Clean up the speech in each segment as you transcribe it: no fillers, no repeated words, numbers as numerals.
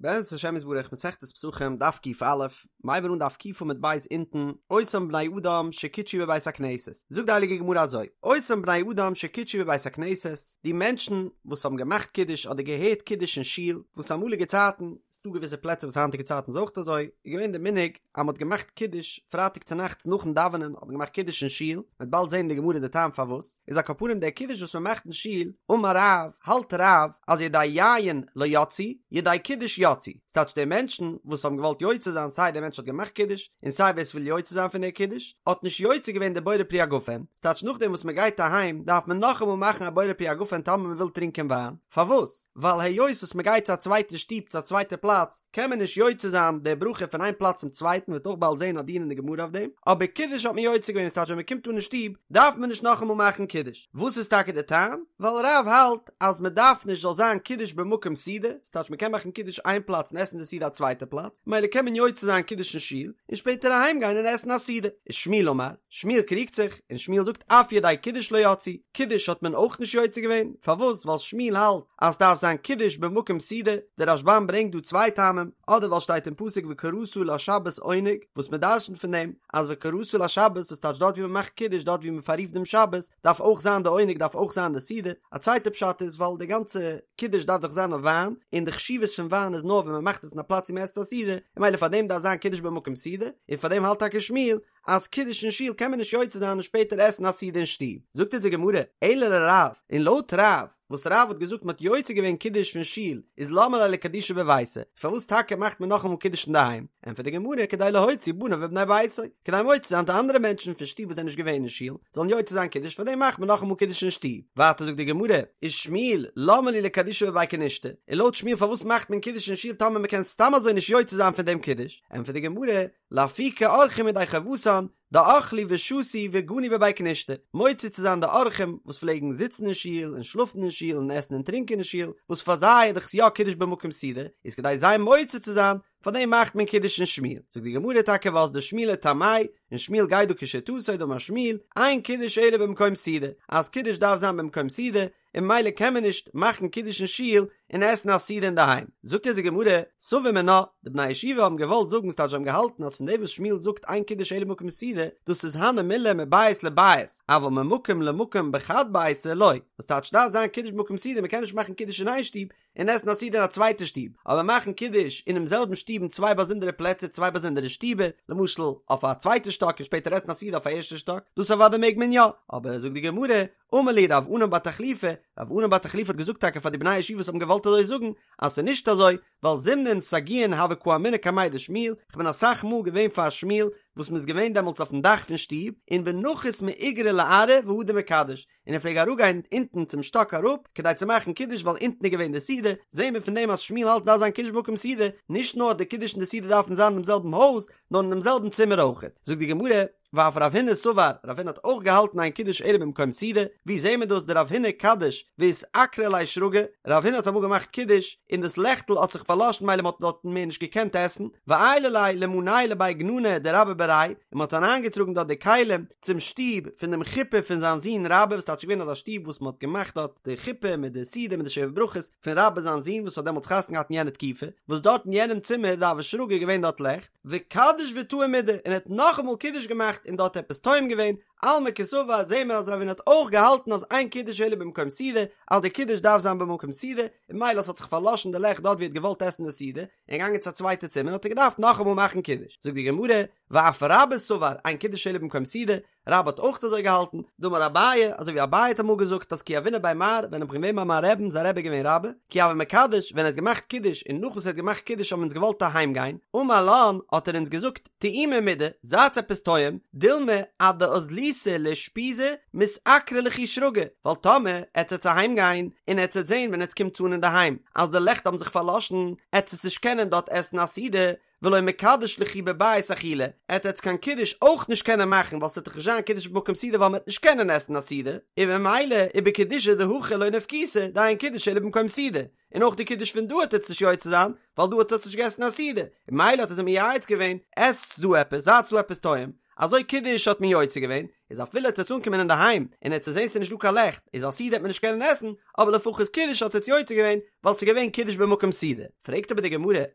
בעזרת השם יתברך מסכת פסחים דף ק"א, מ'הייבן אן דף ק עמוד ב' אונטן, אותן בני אדם שקידשו בבית הכנסת, זאגט די הייליגע גמרא אזוי, אותן בני אדם שקידשו בבית הכנסת, די מענטשן וואס האבן געמאכט קידוש אדער געהערט קידוש אין שול, וואס אמאליגע צייטן, ס'דא געוויסע פלעצער וואס היינטיגע צייטן איז אויך אזוי, איז געווען די מנהג אז מ'האט געמאכט קידוש פרייטאג צונאכטס נאכן דאווענען האט מען געמאכט קידוש אין שול, מ'וועט באלד זען אין די גמרא די טעם פארוואס. איז על כל פנים דער קידוש וואס מען מאכט אין שול, אמר רב, האלט רב אז ידי יין לא יצאו, ידי קידוש יצאו, ס'טייטש די מענטשן וואס האבן געוואלט יוצא זיין סיי דער מענטש האט געמאכט קידוש און סיי ווער ס'וויל יוצא זיין פון דער קידוש, האט נישט יוצא געווען די בורא פרי הגפן, ס'טייטש נאכדעם וואס מען גייט אהיים דארף מען נאכאמאל מאכן א בורא פרי הגפן טאמער מען וויל טרינקען וויין, פארוואס? ווייל היות וואס מען גייט צו א צווייטע שטוב צו א צווייטע פלאץ, קען מען נישט יוצא זיין די ברכה פון איין פלאץ צום צווייטן מ'וועט אויך באלד זען א דיון אין די גמרא אויף דעם, אבער קידוש האט מען יוצא געווען ס'טייטש ווען מ'קומט אן אין שטוב דארף מען נישט נאכאמאל מאכן קידוש, וואס איז טאקע די טעם? ווייל רב האלט אז מ'דארף נישט זאל זיין קידוש במקום סעודה, ס'טייטש מ'קען מאכן קידוש איין פלאץ און עסן די סעודה א צווייטע פלאץ, ממילא קען מען יוצא זיין קידוש אין שול און שפעטער אהיים גיין און עסן א סעודה, ושמואל אמר, שמואל קריגט זיך, און שמואל זאגט אף ידי קידוש לא יצאו, קידוש האט מען אויך נישט יוצא געווען, פארוואס? ווייל שמואל האלט אז ס'דארף זיין קידוש במקום סעודה, דער רשב"ם ברענגט דא צוויי טעמים, אדער ווייל שטייט אין פסוק וקראת לשבת עונג, וואס מען דרשנ'ט פון דעם אז וקראת לשבת דאס טייטש דארט ווי מען מאכט קידוש דארט ווי מען פאררופט דעם שבת דארף אויך זיין די עונג דארף אויך זיין די סעודה, א צווייטע פשט איז ווייל די גאנצע קידוש דארף דאך זיין אויף וויין, און די חשיבות פון וויין איז נאר ווען מען מאכט עס אין א פלאץ ווי מען עסט א סעודה, און ממילא פאר דעם דארף זיין קידוש במקום סעודה, און פאר דעם האלט טאקע שמואל אז קידוש אין שול קען מען נישט יוצא זיין און שפעטער עסן א סעודה אין שטוב, זאגט אונז די גמרא, אלא לרב, און לויט רב, וואס רב האט געזאגט מ'האט יוצא געווען קידוש פון שול, איז למה ליה לקדושי בביתיה, פארוואס טאקע מאכט מען נאכאמאל קידוש אינדערהיים? ענטפערט די גמרא, כדי להוציא בניו ובני ביתו, כדי מוציא זיין די אנדערע מענטשן פון שטוב וואס זענען נישט געווען אין שול, זאלן יוצא זיין קידוש, פארדעם מאכט מען נאכאמאל קידוש אין שטוב. ווייטער זאגט די גמרא, ושמואל, למה לי לקדושי בבי כנישתא, און לויט שמואל פארוואס מאכט מען קידוש אין שול טאמער מ'קען סתם אזוי נישט יוצא זיין פון דעם קידוש? ענטפערט די גמרא, לאפוקי אורחים ידי חובתן, דאכלי ושתו וגנו בבי כנישתא, מוציא צו זיין די אורחים וואס פלעגן זיצן אין שול און שלאפן אין שול און עסן און טרינקען אין שול, וואס פאר זיי איז דאך יא קידוש במקום סעודה, איז כדי זיי מוציא צו זיין, פאר דעם מאכט מען קידוש אין שמואל. זאגט די גמרא טאקע ואזדא שמואל לטעמיה, און שמואל גייט דא כשיטתו דאמר שמואל, אין קידוש אלא במקום סעודה, אז קידוש דארף זיין במקום סעודה, און ממילא קען מען נישט מאכן קידוש אין שול און עסן א סעודה אינדערהיים. זאגט אונז די גמרא, סבור מינה, די בני הישיבה האבן געוואלט זאגן ס'טייטש זיי האבן געהאלטן אז פון דעם וואס שמואל זאגט אין קידוש אלא במקום סעודה, דאס איז הני מילי מבית לבית, אבל ממקום למקום בחד ביתא לא, וואס טייטש דארף זיין קידוש במקום סעודה, מ'קען נישט מאכן קידוש אין איין שטוב און עסן א סעודה אין א צווייטע שטוב, אבער מאכן קידוש אינעם זעלבן שטוב אין צוויי באזונדערע פלעצער צוויי באזונדערע שטיבער, למשל אויף א צווייטע שטאק און שפעטער עסן א סעודה אויף א ערשטע שטאק, דאס אוודאי מעג מען יא, אבער זאגט די גמרא, אמר להו רב ענן בר תחליפא, רב ענן בר תחליפא האט געזאגט טאקע פאר די בני הישיבה וואס האבן געוואלט אזוי זאגן, אז ס'איז נישט אזוי, ווייל זימנין סגיאין הוה קאמינא קמיה דשמואל, כ'בין אסאך מאל געווען פאר שמואל וואס מ'איז געווען דעמאלטס אויפן דאך פון שטוב, און ונחית מאיגרא לארעא והדר מקדש, און ער פלעג אראפגיין אונטן צום שטאק אראפ כדי צו מאכן קידוש ווייל אונטן איז געווען די סעודה, זעהן מיר פון דעם אז שמואל האלט דארף זיין קידוש במקום סעודה, נישט נאר די קידוש און די סעודה דארפן זיין אינעם זעלבן הויז, נאר אינעם זעלבן צימער אויכעט. זאגט די גמרא, ואף רב הונא סבר, רב הונא האט אויך געהאלטן אין קידוש אלא במקום סעודה, ווי זעהן מיר דאס דרב הונא קדיש ואיתעקרא ליה שרגא, רב הונא האט אמאל געמאכט קידוש און דאס לעכטל האט זיך פארלאשן מילא מען האט דארטן מער נישט געקענט עסן, ועיילא ליה למנייהו לבי גננא דרבה בריה, און מען האט אריינגעטראגן דארט די כלים צום שטוב פון דעם חופה פון זיין זון רבה וואס טייטש געווען אזא שטוב וואס מען האט געמאכט דארט די חופה מיט די סעודה מיט די שבע ברכות פון רבה זיין זון וואס האט דעמאלטס חתונה געהאט אין יענע תקופה, וואס דארט אין יענעם צימער דהוה שרגא געווען דארט לעכט. וקדיש וטעים מידי, און ער האט נאכאמאל קידוש געמאכט און דארט עפעס טועם געווען, אלמא קסבר זעהן מיר אז רב הונא האט אויך געהאלטן אז אין קידוש אלא במקום סעודה, אז די קידוש דארף זיין במקום סעודה, און ממילא ס'האט זיך פארלאשן די לעכט דארט ווי ער האט געוואלט עסן די סעודה, און געגאנגען צו א צווייטע צימער האט ער געדארפט נאכאמאל מאכן קידוש, זאגט די גמרא, ואף רבה סבר אין קידוש אלא במקום סעודה, רבה האט אויך אזוי געהאלטן, דאמר אביי, אזוי ווי אביי האט אמאל געזאגט אז כי הוינא בי מר, ווען איך בין געווען ביי מיין רעבן, זיין רבי איז געווען רבה, כי הוה מקדש, ווען ער האט געמאכט קידוש און נאך וואס ער האט געמאכט קידוש האבן אונז געוואלט אהיים גיין, אמר לן, האט ער אונז געזאגט, טעימו מידי, זייטס עפעס טועם, דילמא עד דאזליתו לאושפיזא מתעקרא לכו שרגא, ווייל טאמער עטס עטס אהיים גיין, און עטס עטס זען ווען עטס קומטס אן אינדערהיים אז די לעכט האבן זיך פארלאשן, עטס עטס נישט קענען דארט עסן א סעודה, ולא מקדש לכו בבית אכילה, עט עטס קיין קידוש אויך נישט קענען מאכן ווייל ס'עט דאך נישט זיין קידוש במקום סעודה ווייל מ'עט נישט קענען עסן א סעודה, און ממילא ובקידושא דהכא לא נפקיתו דאין קידוש אלא במקום סעודה, און אויך די קידוש פון דא עט עטס נישט יוצא זיין ווייל דא האט עטס נישט געסן א סעודה, און ממילא האט ער זיי מייעץ געווען, עסטס דא עפעס, זייטס דא עפעס טועם. אזוי קידוש האט מען יוצא געווען, איז אפילו עטס אנקומען אינדערהיים און עטס זעהן ס'איז נישט דא קיין לעכט, איז א סעודה וועט מען נישט קענען עסן, אבער לפחות קידוש האט עטס יוצא געווען, ווייל ס'איז געווען קידוש במקום סעודה. פרעגט אבער די גמרא,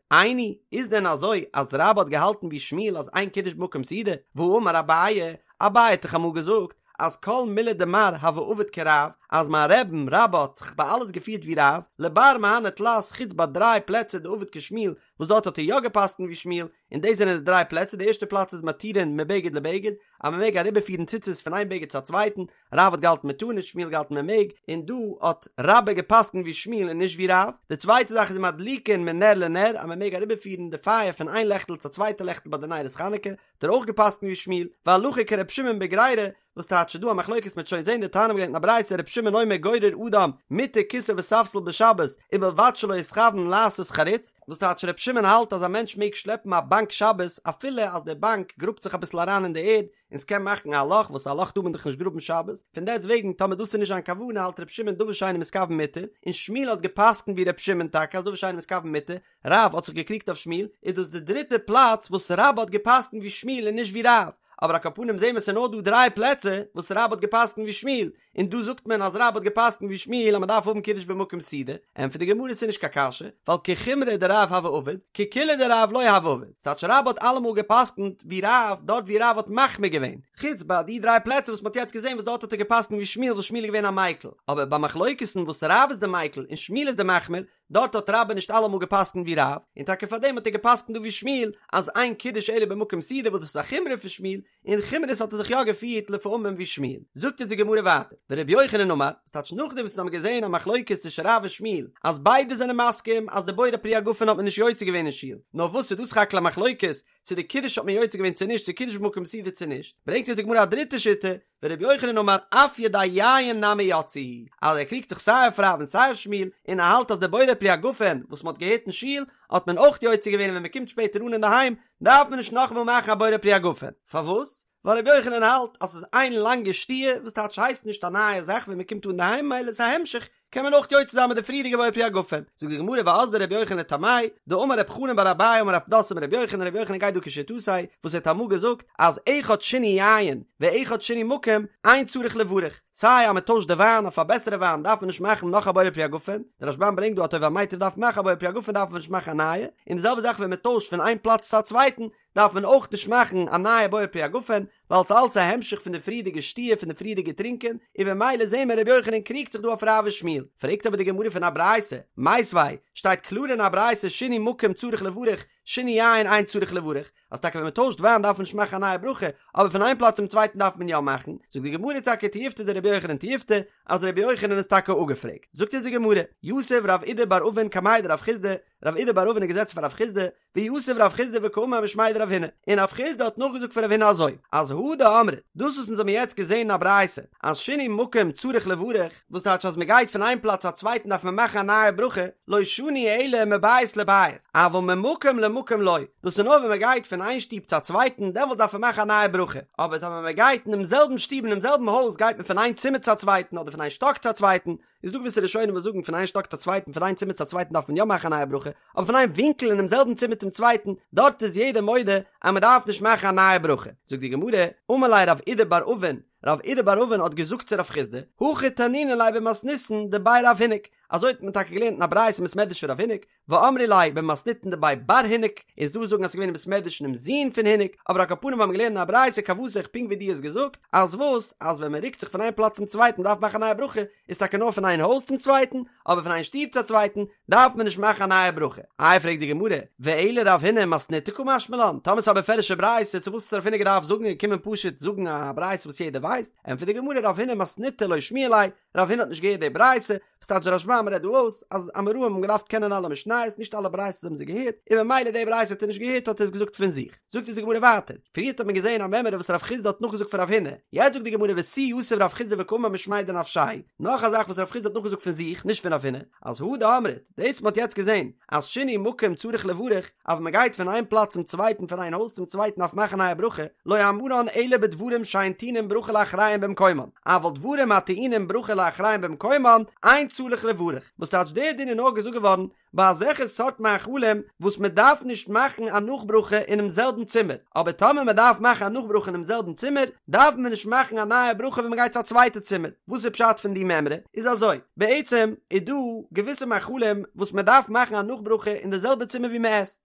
איני, איז דען אזוי אז רבה האט געהאלטן ווי שמואל אז אין קידוש במקום סעודה? והאמר אביי, אביי האט דאך אמאל געזאגט אז כל מילי דמר הוה עביד כרב, אז מיין רבי'ן רבה האט זיך ביי אלעס געפירט ווי רב, לבר מהני תלת חוץ ביי דריי פלעצער דעביד כשמואל וואס דארט האט ער יא געפסקנט ווי שמואל, און דאס זענען די דריי פלעצער, די ערשטע פלאץ איז מתירין מבגד לבגד, אז מען מעג אריבערפירן ציצית פון איין בגד צו א צווייטן, רב האט געהאלטן מען טאר נישט, שמואל האט געהאלטן מען מעג, און דא האט רבה געפסקנט ווי שמואל און נישט ווי רב, די צווייטע זאך איז מדליקין מנר לנר, אז מען מעג אריבערפירן די פייער פון איין לעכטל צו א צווייטע לעכטל ביי די נרות חנוכה, האט ער אויך געפסקנט ווי שמואל, והלכה כר' שמעון בגרירה, וואס טייטש ס'דא א מחלוקת מ'עט שוין זעהן דתניא מ'האט געלערנט אין א ברייתא ר' שמעון אומר גורר אדם מטה כסא וספסל בשבת ובלבד שלא יתכוון לעשות חריץ, וואס טייטש ר' שמעון האלט אז א מענטש מעג שלעפן א באנק שבת אפילו אז די באנק גראבט זיך אביסל אריין אין די ערד און ס'קען מאכן א לאך וואס א לאך טאר מען דאך נישט גראבן שבת, פון דעסט וועגן טאמער דאס איז נישט זיין כוונה האלט ר' שמעון דבר שאינו מתכוון מותר, און שמואל האט געפסקנט ווי ר' שמעון טאקע אז דבר שאינו מתכוון מותר, רב האט זיך געקריגט אויף שמואל, איז דאס די דריטע פלאץ וואס רבה האט געפסקנט ווי שמואל און נישט ווי רב, אבער על כל פנים זעהן מיר ס'איז נאר דא דריי פלעצער וואס רבה האט געפסקנט ווי שמואל, און דא זאגט מען אז רבה האט געפסקנט ווי שמואל אז מ'דארף האבן קידוש במקום סעודה, ענטפערט די גמרא ס'איז נישט קיין קשיא, ווייל כחומרא דרב הוה עביד, כקולא דרב לא הוה עביד, ס'טייטש רבה האט אלעמאל געפסקנט ווי רב דארט ווי רב האט מחמיר געווען, חוץ ביי די דריי פלעצער וואס מ'האט יעצט געזעהן וואס דארט האט ער געפסקנט ווי שמואל וואס שמואל איז געווען א מיקל, אבער ביי מחלוקת'ן וואס רב איז די מיקל און שמואל איז די מחמיר, דארט האט רבה נישט אלעמאל געפסקנט ווי רב, און טאקע פארדעם האט ער געפסקנט דא ווי שמואל אז אין קידוש אלא במקום סעודה וואס דאס איז א חומרא פון שמואל, אין חומרות האט ער זיך יא געפירט לפעמים ווי שמואל. זאגט אונז די גמרא ווייטער, ורבי יוחנן אמר, וואס טייטש נאכדעם וואס אונז האבן געזען א מחלוקת צווישן רב און שמואל אז ביידע זענען מסכים אז די בורא פרי הגפן האט מען נישט יוצא געווען אין שול, נאר וואס איז דא סך הכל א מחלוקת צו די קידוש האט מען יוצא געווען צו נישט, צו קידוש במקום סעודה צו נישט, ברענגט אונז די גמרא א דריטע שיטה, ורבי יוחנן אמר אף ידי יין נמי יצאו, אז ער קריגט זיך סיי אויף רב און סיי אויף שמואל, און ער האלט אז די בורא פרי הגפן וואס מען האט געהערט אין שול האט מען אויך יוצא געווען און ווען מען קומט שפעטער אן אינדערהיים דארף מען נישט נאכאמאל מאכן א בורא פרי הגפן, פארוואס? ווייל רבי יוחנן האלט אז ס'איז איין לאנגע שתיה וואס טייטש הייסט נישט א נייע זאך ווען מען קומט אן אינדערהיים מילא איז א המשך קען מען אויך יוצא זיין מיט די פריערדיגע בורא פרי הגפן, זאגט די גמרא ואזדא רבי יוחנן לטעמיה, דאמר רב חנן בר אביי אמר רב פדת אמר רבי יוחנן, רבי יוחנן גייט דא כשיטתו, וואס ער האט אמאל געזאגט אז אחד שינוי יין ואחד שינוי מקום אין צריך לברך, סיי אז מען טוישט די וויין אויף א בעסערע וויין דארף מען נישט מאכן נאך א בורא פרי הגפן, דער רשב"ם ברענגט דא אז הטוב והמיטיב דארף מען מאכן א בורא פרי הגפן דארף מען נישט מאכן א נייע, און די זעלבע זאך ווען מען טוישט פון איין פלאץ צו א צווייטן דארף מען אויך נישט מאכן א נייע בורא פרי הגפן, ווייל ס'איז אלץ א המשך פון די פריערדיגע שתיה פון די פריערדיגע טרינקען, און במילא זעהן מיר רבי יוחנן קריגט זיך דא אויף רב ושמואל. פרעגט אבער די גמרא פון א ברייתא, מיתיבי, שטייט קלאר אין א ברייתא שינוי מקום צריך לברך, שינוי יין אין צריך לברך, אז טאקע ווען מ'טוישט וויין דארף מען נישט מאכן א נייע ברכה, אבער פון איין פלאץ צום צווייטן דארף מען יא מאכן, זאגט די גמרא טאקע תיובתא דרבי יוחנן תיובתא, אז רבי יוחנן איז טאקע אפגעפרעגט. זאגט אונז די גמרא, יתיב רב אידי בר אבין קמיה דרב חסדא, רב אידי בר אבין איז געזעצן פאר רב חסדא, ויתיב רב חסדא וקאמר משמיה דרב הונא, און רב חסדא האט נאכגעזאגט פון רב הונא אזוי, אז הא דאמרת, דאס וואס אונז האבן יעצט געזען אין א ברייתא, אז שינוי מקום צריך לברך, וואס טייטש אז מען גייט פון איין פלאץ צו א צווייטן דארף מען מאכן א נייע ברכה, לא שנו אלא מבית לבית, אבל ממקום למקום לא, דאס איז נאר ווען מען גייט פון איין שטוב צו א צווייטן דעמאלט דארף מען מאכן א נייע ברכה, אבער טאמער מען גייט אינעם זעלבן שטוב אינעם זעלבן הויז גייט מען פון איין צימער צו א צווייטן אדער פון איין שטאק צו א צווייטן, איז דא געוויסע ראשונים וואס זאגן פון איין שטאק צו א צווייטן פון איין צימער צו א צווייטן דארף מען יא מאכן א נייע ברכה, אבער פון איין ווינקל אינעם זעלבן צימער צום צווייטן, דארט איז יעדער מודה אז מען דארף נישט מאכן א נייע ברכה. זאגט די גמרא, אמר ליה רב אידי בר אבין, רב אידי בר אבין האט געזאגט צו רב חסדא, הכי תנינא ליה במתניתין דבי רב הינק, אזוי האט מען טאקע געלערנט אין א ברייתא אין בית מדרש פון רב הינק, ואמרי ליה במתניתין דבי בר הינק, איז דא וואס זאגן אז ס'איז געווען אין בית מדרש פונעם זון פון הינק, אבער על כל פנים האבן מיר געלערנט אין א ברייתא כוותיך פונקט ווי דו האסט געזאגט, אז וואס, אז ווען מען רוקט זיך פון איין פלאץ צום צווייטן דארף מען מאכן א נייע ברכה, איז טאקע נאר פון איין הויז צום צווייטן, אבער פון איין שטוב צו א צווייטן דארף מען נישט מאכן א נייע ברכה. איי פרעגט די גמרא, ואלא רב הונא מתניתא קא משמע לן, טאמער ס'איז א בפירוש'ע ברייתא צו וואס האט רב הונא געדארפט זאגן און קומען פשוט זאגן א ברייתא וואס יעדער ווייסט, ענטפערט די גמרא רב הונא מתניתא לא שמיע ליה, רב הונא האט נישט געהערט די ברייתא, וואס טייטש דער רשב"ם רעדט דא אויס אז אמוראים האבן געדארפט קענען אלע משניות, נישט אלע ברייתות האבן זיי געהערט, און ממילא די ברייתא האט ער נישט געהערט האט ער עס געזאגט פון זיך. זאגט אונז די גמרא ווייטער, פריערט האט מען געזען א מימרא וואס רב חסדא האט נאכגעזאגט פון רב הונא, יעצט זאגט די גמרא ותו יתיב רב חסדא וקאמר משמיה דנפשיה, נאך א זאך וואס רב חסדא האט נאכגעזאגט פון זיך, נישט פון רב הונא, אז הא דאמרת, דאס מ'האט יעצט געזען, אז שינוי מקום צריך לברך, אז ווען מ'גייט פון איין פלאץ צום צווייטן פון איין הויז צום צווייטן דארף מאכן א נייע ברכה, לא אמרן אלא בדברים שאין טעונין ברכה לאחריהם במקומן, אבל דברים הטעונים ברכה לאחריהם במקומן, אין צריך לברך, וואס טייטש דער דין איז נאר געזאגט געווארן. ביי אזעלכע סארט מאכלים וואס מען דארף נישט מאכן א נאכברכה אינעם זעלבן צימער, אבער טאמער מען דארף מאכן א נאכברכה אינעם זעלבן צימער, דארף מען נישט מאכן א נייע ברכה ווען מען גייט צו א צווייטע צימער. וואס איז פשט פון די מימרא? איז אזוי, בעצם איז דא געוויסע מאכלים וואס מען דארף מאכן א נאכברכה אין די זעלבע צימער ווי מען עסט,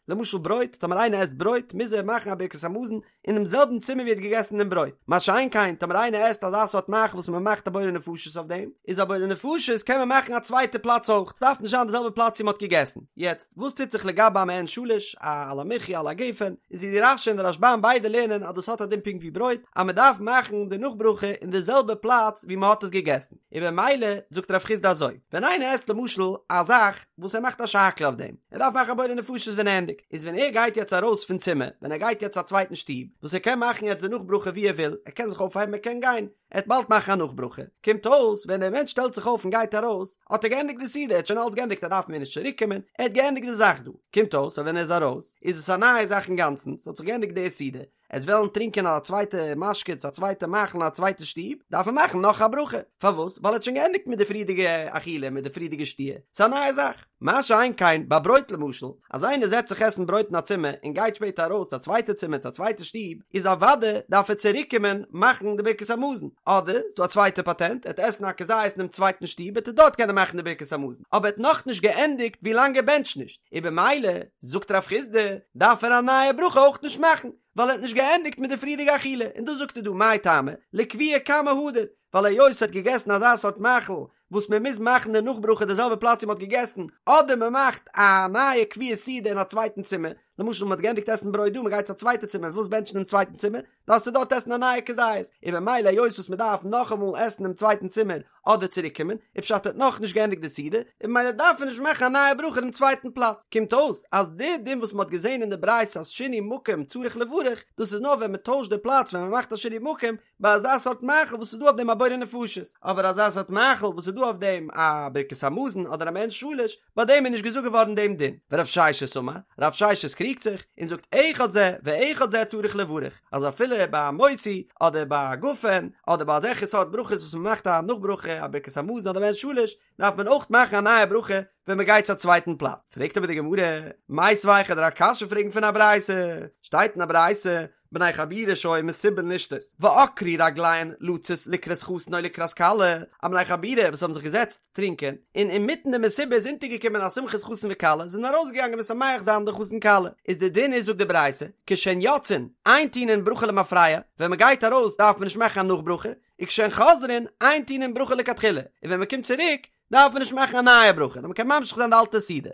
למשל ברויט, טאמער איינער עסט ברויט מוז ער מאכן א ברכת המזון אינעם זעלבן צימער ווי ער האט געגעסן דעם ברויט, מה שאין כן טאמער איינער עסט אזא סארט מאכל וואס מען מאכט א בורא נפשות אויף דעם, איז א בורא נפשות קען מען מאכן א צווייטע פלאץ אויך, ס'דארף נישט זיין די זעלבע פלאץ ווי מען האט געגעסן. יעצט, וואס טוט זיך לגבי א מעין שלש, א על המחיה על הגפן, איז ווי די רש"י און די רשב"ם ביידע לערנען אז דאס האט א דין פונקט ווי ברויט, אז מען דארף מאכן די נאכברכה אין די זעלבע פלאץ ווי מען האט עס געגעסן, און במילא זאגט רב חסדא אזוי, ווען איינער עסט למשל א זאך וואס ער מאכט א שהכל אויף דעם, ער דארף מאכן א בורא נפשות ווען ער ענדיגט, איז ווען ער גייט יעצט ארויס פון צימער, ווען ער גייט יעצט צו א צווייטן שטוב, וואס ער קען מאכן יעצט די נאכברכה ווי ער וויל, ער קען זיך אויפהייבן ער קען גיין, ער וועט באלד מאכן א נאכברכה, קומט אויס ווען דער מענטש שטעלט זיך אויף און גייט ארויס, האט ער געענדיגט די סעודה, ער האט שוין אלץ געענדיגט ער דארף מער נישט צוריק קומען, ער האט געענדיגט די זאך דא, קומט אויס אז ווען ער איז ארויס, איז עס א נייע זאך אינגאנצן, ס'האט זיך געענדיגט די סעודה, ער וועט וועלן טרינקען א צווייטע משקה צו א צווייטע מאכל אין א צווייטע שטוב, דארף ער מאכן נאך א ברכה. פארוואס? ווייל ער האט שוין געענדיגט מיט די פריערדיגע אכילה, מיט די פריערדיגע שתיה. ס'איז א נייע זאך. מה שאין כן ביי ברויט למשל, אז איינער זעצט זיך עסן ברויט אין א צימער און גייט שפעטער ארויס צו א צווייטע צימער צו א צווייטע שטוב, איז אוודאי דארף ער צוריקקומען מאכן די ברכת המזון. אדער, ס'איז דא א צווייטע פאטענט, ער וועט עסן א כזית אינעם צווייטן שטוב וועט ער דארט קענען מאכן די ברכת המזון. אבער ער האט נאכנישט געענדיגט ווילאנג ער בענטשט נישט. און במילא, זאגט רב חסדא, דארף ער א נייע ברכה אויך נישט מאכן, ווייל ער האט נישט געענדיגט מיט די פריערדיגע אכילה, און דאס זאגט ער דא מאי טעמא, לקביעה קמא הדר, ווייל היות ער האט געגעסן אזא סארט מאכל וואס מען מוז מאכן די נאכברכה די זעלבע פלאץ ווי מען האט געגעסן, אדער מען מאכט א נייע קביעת סעודה אין א צווייטן צימער, למשל מען האט געענדיגט עסן ברויט דא, מען גייט צו א צווייטע צימער, ווילסט בענטשן דעם צווייטן צימער, דארפסטו דארט עסן א נייע כזית, און במילא היות וואס מען דארף נאכאמאל עסן דעם צווייטן צימער אדער צוריק קומען, איז פשט ער האט נאכנישט געענדיגט די סעודה, און במילא דארף ער נישט מאכן א נייע ברכה אינעם צווייטן פלאץ. קומט אויס אז די דין וואס מען האט געזען אין די ברייתא אז שינוי מקום צריך לברך, דאס איז נאר ווען מען טוישט די פלאץ ווען מען מאכט א שינוי מקום, ביי אזא סארט מאכל וואס איז דא אויף דעם א בורא נפשות, אבער אזא סארט מאכל וואס איז דא אויף דעם א ברכת המזון אדער א מעין שלש, ביי דעם איז נישט געזאגט געווארן דעם דין. ורב ששת אמר, רב ששת קריגט זיך, און זאגט אחד זה ואחד זה צריך לברך, אז אפילו ביי א מוציא, אדער ביי א גפן, אדער ביי אזעלכע סארט ברכות וואס מען מאכט א נאכברכה, א ברכת המזון אדער מעין שלש, דארף מען אויך מאכן א נייע ברכה ווען מען גייט צו א צווייטן פלאץ. פרעגט אבער די גמרא, מיתיבי כ'וועל דיר א קשיא פרעגן פון א ברייתא, שטייט אין א ברייתא, בני חבורה שהיו מסובין לשתות, ועקרו רגליהן לצאת לקראת חתן או לקראת כלה, א בני חבורה וואס האבן זיך געזעצט טרינקען, און אינמיטן די מסיבה איז אונטערגעקומען א שמחת חתן וכלה, זענען ארויסגעגאנגען משמח זיין די חתן כלה, איז די דין איז זאגט די ברייתא, כשהן יוצאין, אין טעונין ברכה למפרע, ווען מען גייט ארויס דארף מען נישט מאכן א נאכברכה, וכשהן חוזרין, אין טעונין ברכה לכתחילה, און ווען מען קומט צוריק, דארף מען נישט מאכן א נייע ברכה, נאר מען קען ממשיך זיין די אלטע סעודה.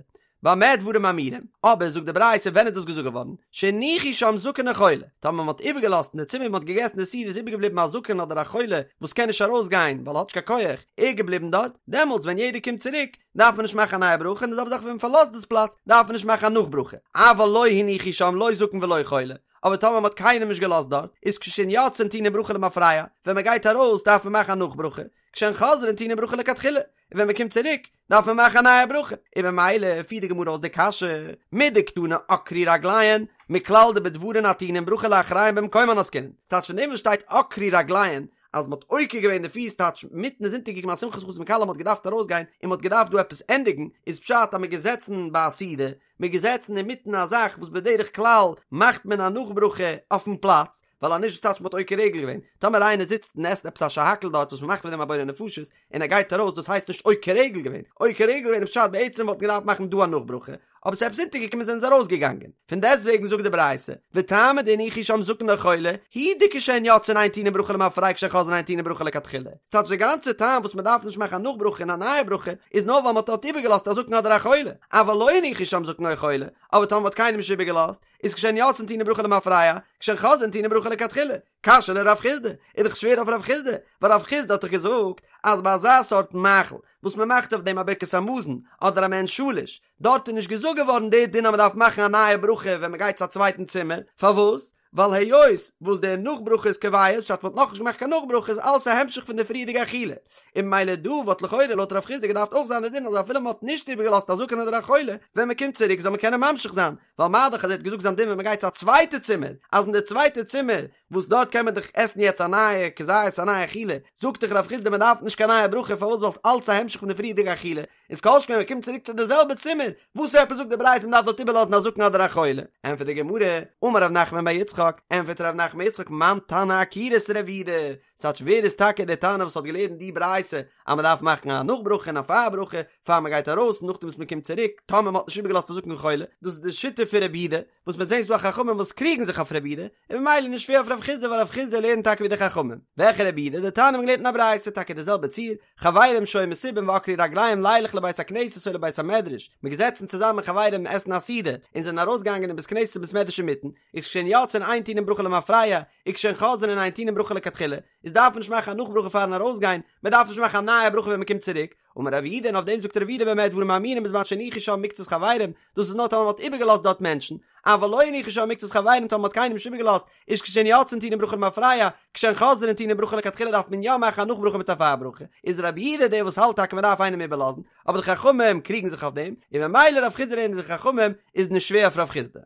במה דברים אמורים, אבער זאגט די ברייתא ווען איז דאס געזאגט געווארן, שהניחו שם זקן או חולה, טאמער מען האט איבערגעלאזט אין די צימער ווי מען האט געגעסן די סעודה איז איבערגעבליבן א זקן אדער א חולה וואס קען נישט ארויסגיין ווייל ער האט נישט קיין כח, ער איז געבליבן דארט, דעמאלטס ווען יעדער קומט צוריק דארף מען נישט מאכן א נייע ברכה, און די זעלבע זאך ווען מען פארלאזט דאס פלאץ דארף מען נישט מאכן א נאכברכה, אבל לא הניחו שם לא זקן ולא חולה, אבער טאמער מען האט קיינעם נישט געלאזט דארט, איז כשהן יוצאין טעונין ברכה למפרע, ווען מען גייט ארויס דארף מען מאכן א נאכברכה, כשהן חוזרין טעונין ברכה לכתחילה, און ווען מען קומט צוריק דארף מען מאכן א נייע ברכה, און ממילא פירט די גמרא אויס די קשיא, מדקתני עקרו רגליהן, מכלל דבדברים הטעונין ברכה לאחריהן במקומן עסקינן, ס'טייטש פון דעם וואס שטייט עקרו רגליהן אז מ'האט עוקר געווען די פיס טייטש מיטן איז אונטערגעקומען א שמחת חתן וכלה מ'האט געדארפט ארויסגיין און מ'האט געדארפט דא עפעס ענדיגן, איז פשט אז מ'איז געזעצן ביי א סעודה, מ'איז געזעצן אינמיטן א זאך וואס בדרך כלל מאכט מען א נאכברכה אויפן פלאץ, ווייל אז נישט טייטש מ'האט עוקר רגל געווען, טאמער איינער זיצט און עסט עפעס א שהכל דארט וואס מ'מאכט פון דעם א בורא נפשות און ער גייט ארויס דאס הייסט נישט עוקר רגל געווען, עוקר רגל געווען איז פשט בעצם וואלט מען געדארפט מאכן דא א נאכברכה, אבער ס'איז עפעס אונטערגעקומען זענען זיי ארויסגעגאנגען. פון דעסטוועגן זאגט די ברייתא, וטעמא דהניחו שם זקן או חולה, הוא דכשהן יוצאין אין טעונין ברכה למפרע כשהן חוזרין אין טעונין ברכה לכתחילה. ס'טייטש די גאנצע טעם וואס מ'דארף נישט מאכן א נאכברכה און א נייע ברכה איז נאר ווייל מ'האט דארט איבערגעלאזט א זקן אדער א חולה, אבל לא הניחו שם זקן או חולה, אבער טאמער מ'האט קיינעם נישט איבערגעלאזט, איז כשהן יוצאין טעונין ברכה למפרע, כשהן חוזרין טעונין ברכה לכתחילה. קשיא לרב חסדא, איז דאך שווער אויף רב חסדא, ווייל רב חסדא האט דאך געזאגט אז ביי אזא סארט מאכל וואס מען מאכט אויף דעם א ברכת המזון אדער א מעין שלש, דארט איז נישט געזאגט געווארן די דין אז מען דארף מאכן א נייע ברכה ווען מען גייט צו א צווייטן צימער, פארוואס? ווייל היות וואס דער נאך ברכה איז קובע, פשט מ'האט נאכנישט געמאכט קיין נאך ברכה איז אלעס א המשך פון די פריערדיגע אכילה, און ממילא דא וואלט לכאורה לויט רב חיסדא געדארפט אויך זיין די דין אז אפילו מ'האט נישט איבערגעלאזט א זקן אדער א חולה, ווען מ'קומט צוריק זאל מען קענען ממשיך זיין, ווייל מה דאך אז ער האט געזאגט זיין דין ווען מ'גייט צו א צווייטע צימער, אז אין די צווייטע צימער וואס דארט קען מען דאך עסן יעצט א נייע כזית א נייע אכילה, זאגט דאך רב חיסדא מ'דארף נישט קיין נייע ברכה פארוואס ווייל ס'אלץ א המשך פון די פריערדיגע אכילה, איז כל שכן ווען מ'קומט צוריק צו די זעלבע צימער, וואס עפעס זאגט די ברייתא מ'דארף דארט איבערלאזן א זקן אדער א חולה? ענטפערט די גמרא, אמר רב נחמן בר יצחק, ענטפערט רב נחמן בר יצחק מאן תנא עקירות רב יהודה, ס'טייטש ווער איז טאקע דער תנא וואס האט געלערנט די ברייתא אז מ'דארף מאכן א נאך ברכה און א פאר ברכה פאר מ'גייט ארויס און נאכדעם וואס מ'קומט צוריק טאמער מ'האט נישט איבערגעלאזט א זקן און חולה, דאס איז די שיטה פון רב יהודה, וואס מ'וועט זען ס'דא א חכמים וואס קריגן זיך אויף רב יהודה, און ממילא נישט שווער אויף רב חיסדא ווייל רב חיסדא לערנט טאקע ווי די חכמים. וועלכע רב יהודה? דתניא מ'האט געלערנט אין א ברייתא טאקע די זעלבע ציור, חברים שהיו מסובין ועקרו רגליהם לילך לבית הכנסת או לבית המדרש, מ'איז געזעצן צוזאמען חברים עסן א סעודה, און זענען ארויסגעגאנגען אין בית כנסת און בית מדרש אינמיטן, איז כשהן יוצאין אין טעונין ברכה למפרע, וכשהן חוזרין אין טעונין ברכה לכתחילה, איז דארף מען נישט מאכן א נאך ברכה פארן ארויסגיין, מען דארף נישט מאכן א נייע ברכה ווען מען קומט צוריק, אמר רב יהודה און אויף דעם זאגט רב יהודה במה דברים אמורים בזמן שהניחו שם מקצת חברים, דאס איז נאר טאמער מען האט איבערגעלאזט דארט מענטשן, אבל לא הניחו שם מקצת חברים טאמער מען האט קיינעם נישט איבערגעלאזט, איז כשהן יוצאין טעונין ברכה למפרע, כשהן חוזרין טעונין ברכה לכתחילה דארף מען יא מאכן א נאך ברכה מיט א פאר ברכה, איז רב יהודה דער וואס האלט טאקע מען דארף איינעם איבערלאזן, אבער די חכמים קריגן זיך אויף דעם, און ממילא רב חיסדא לערנט ווי די חכמים, איז נישט שווער אויף רב חיסדא.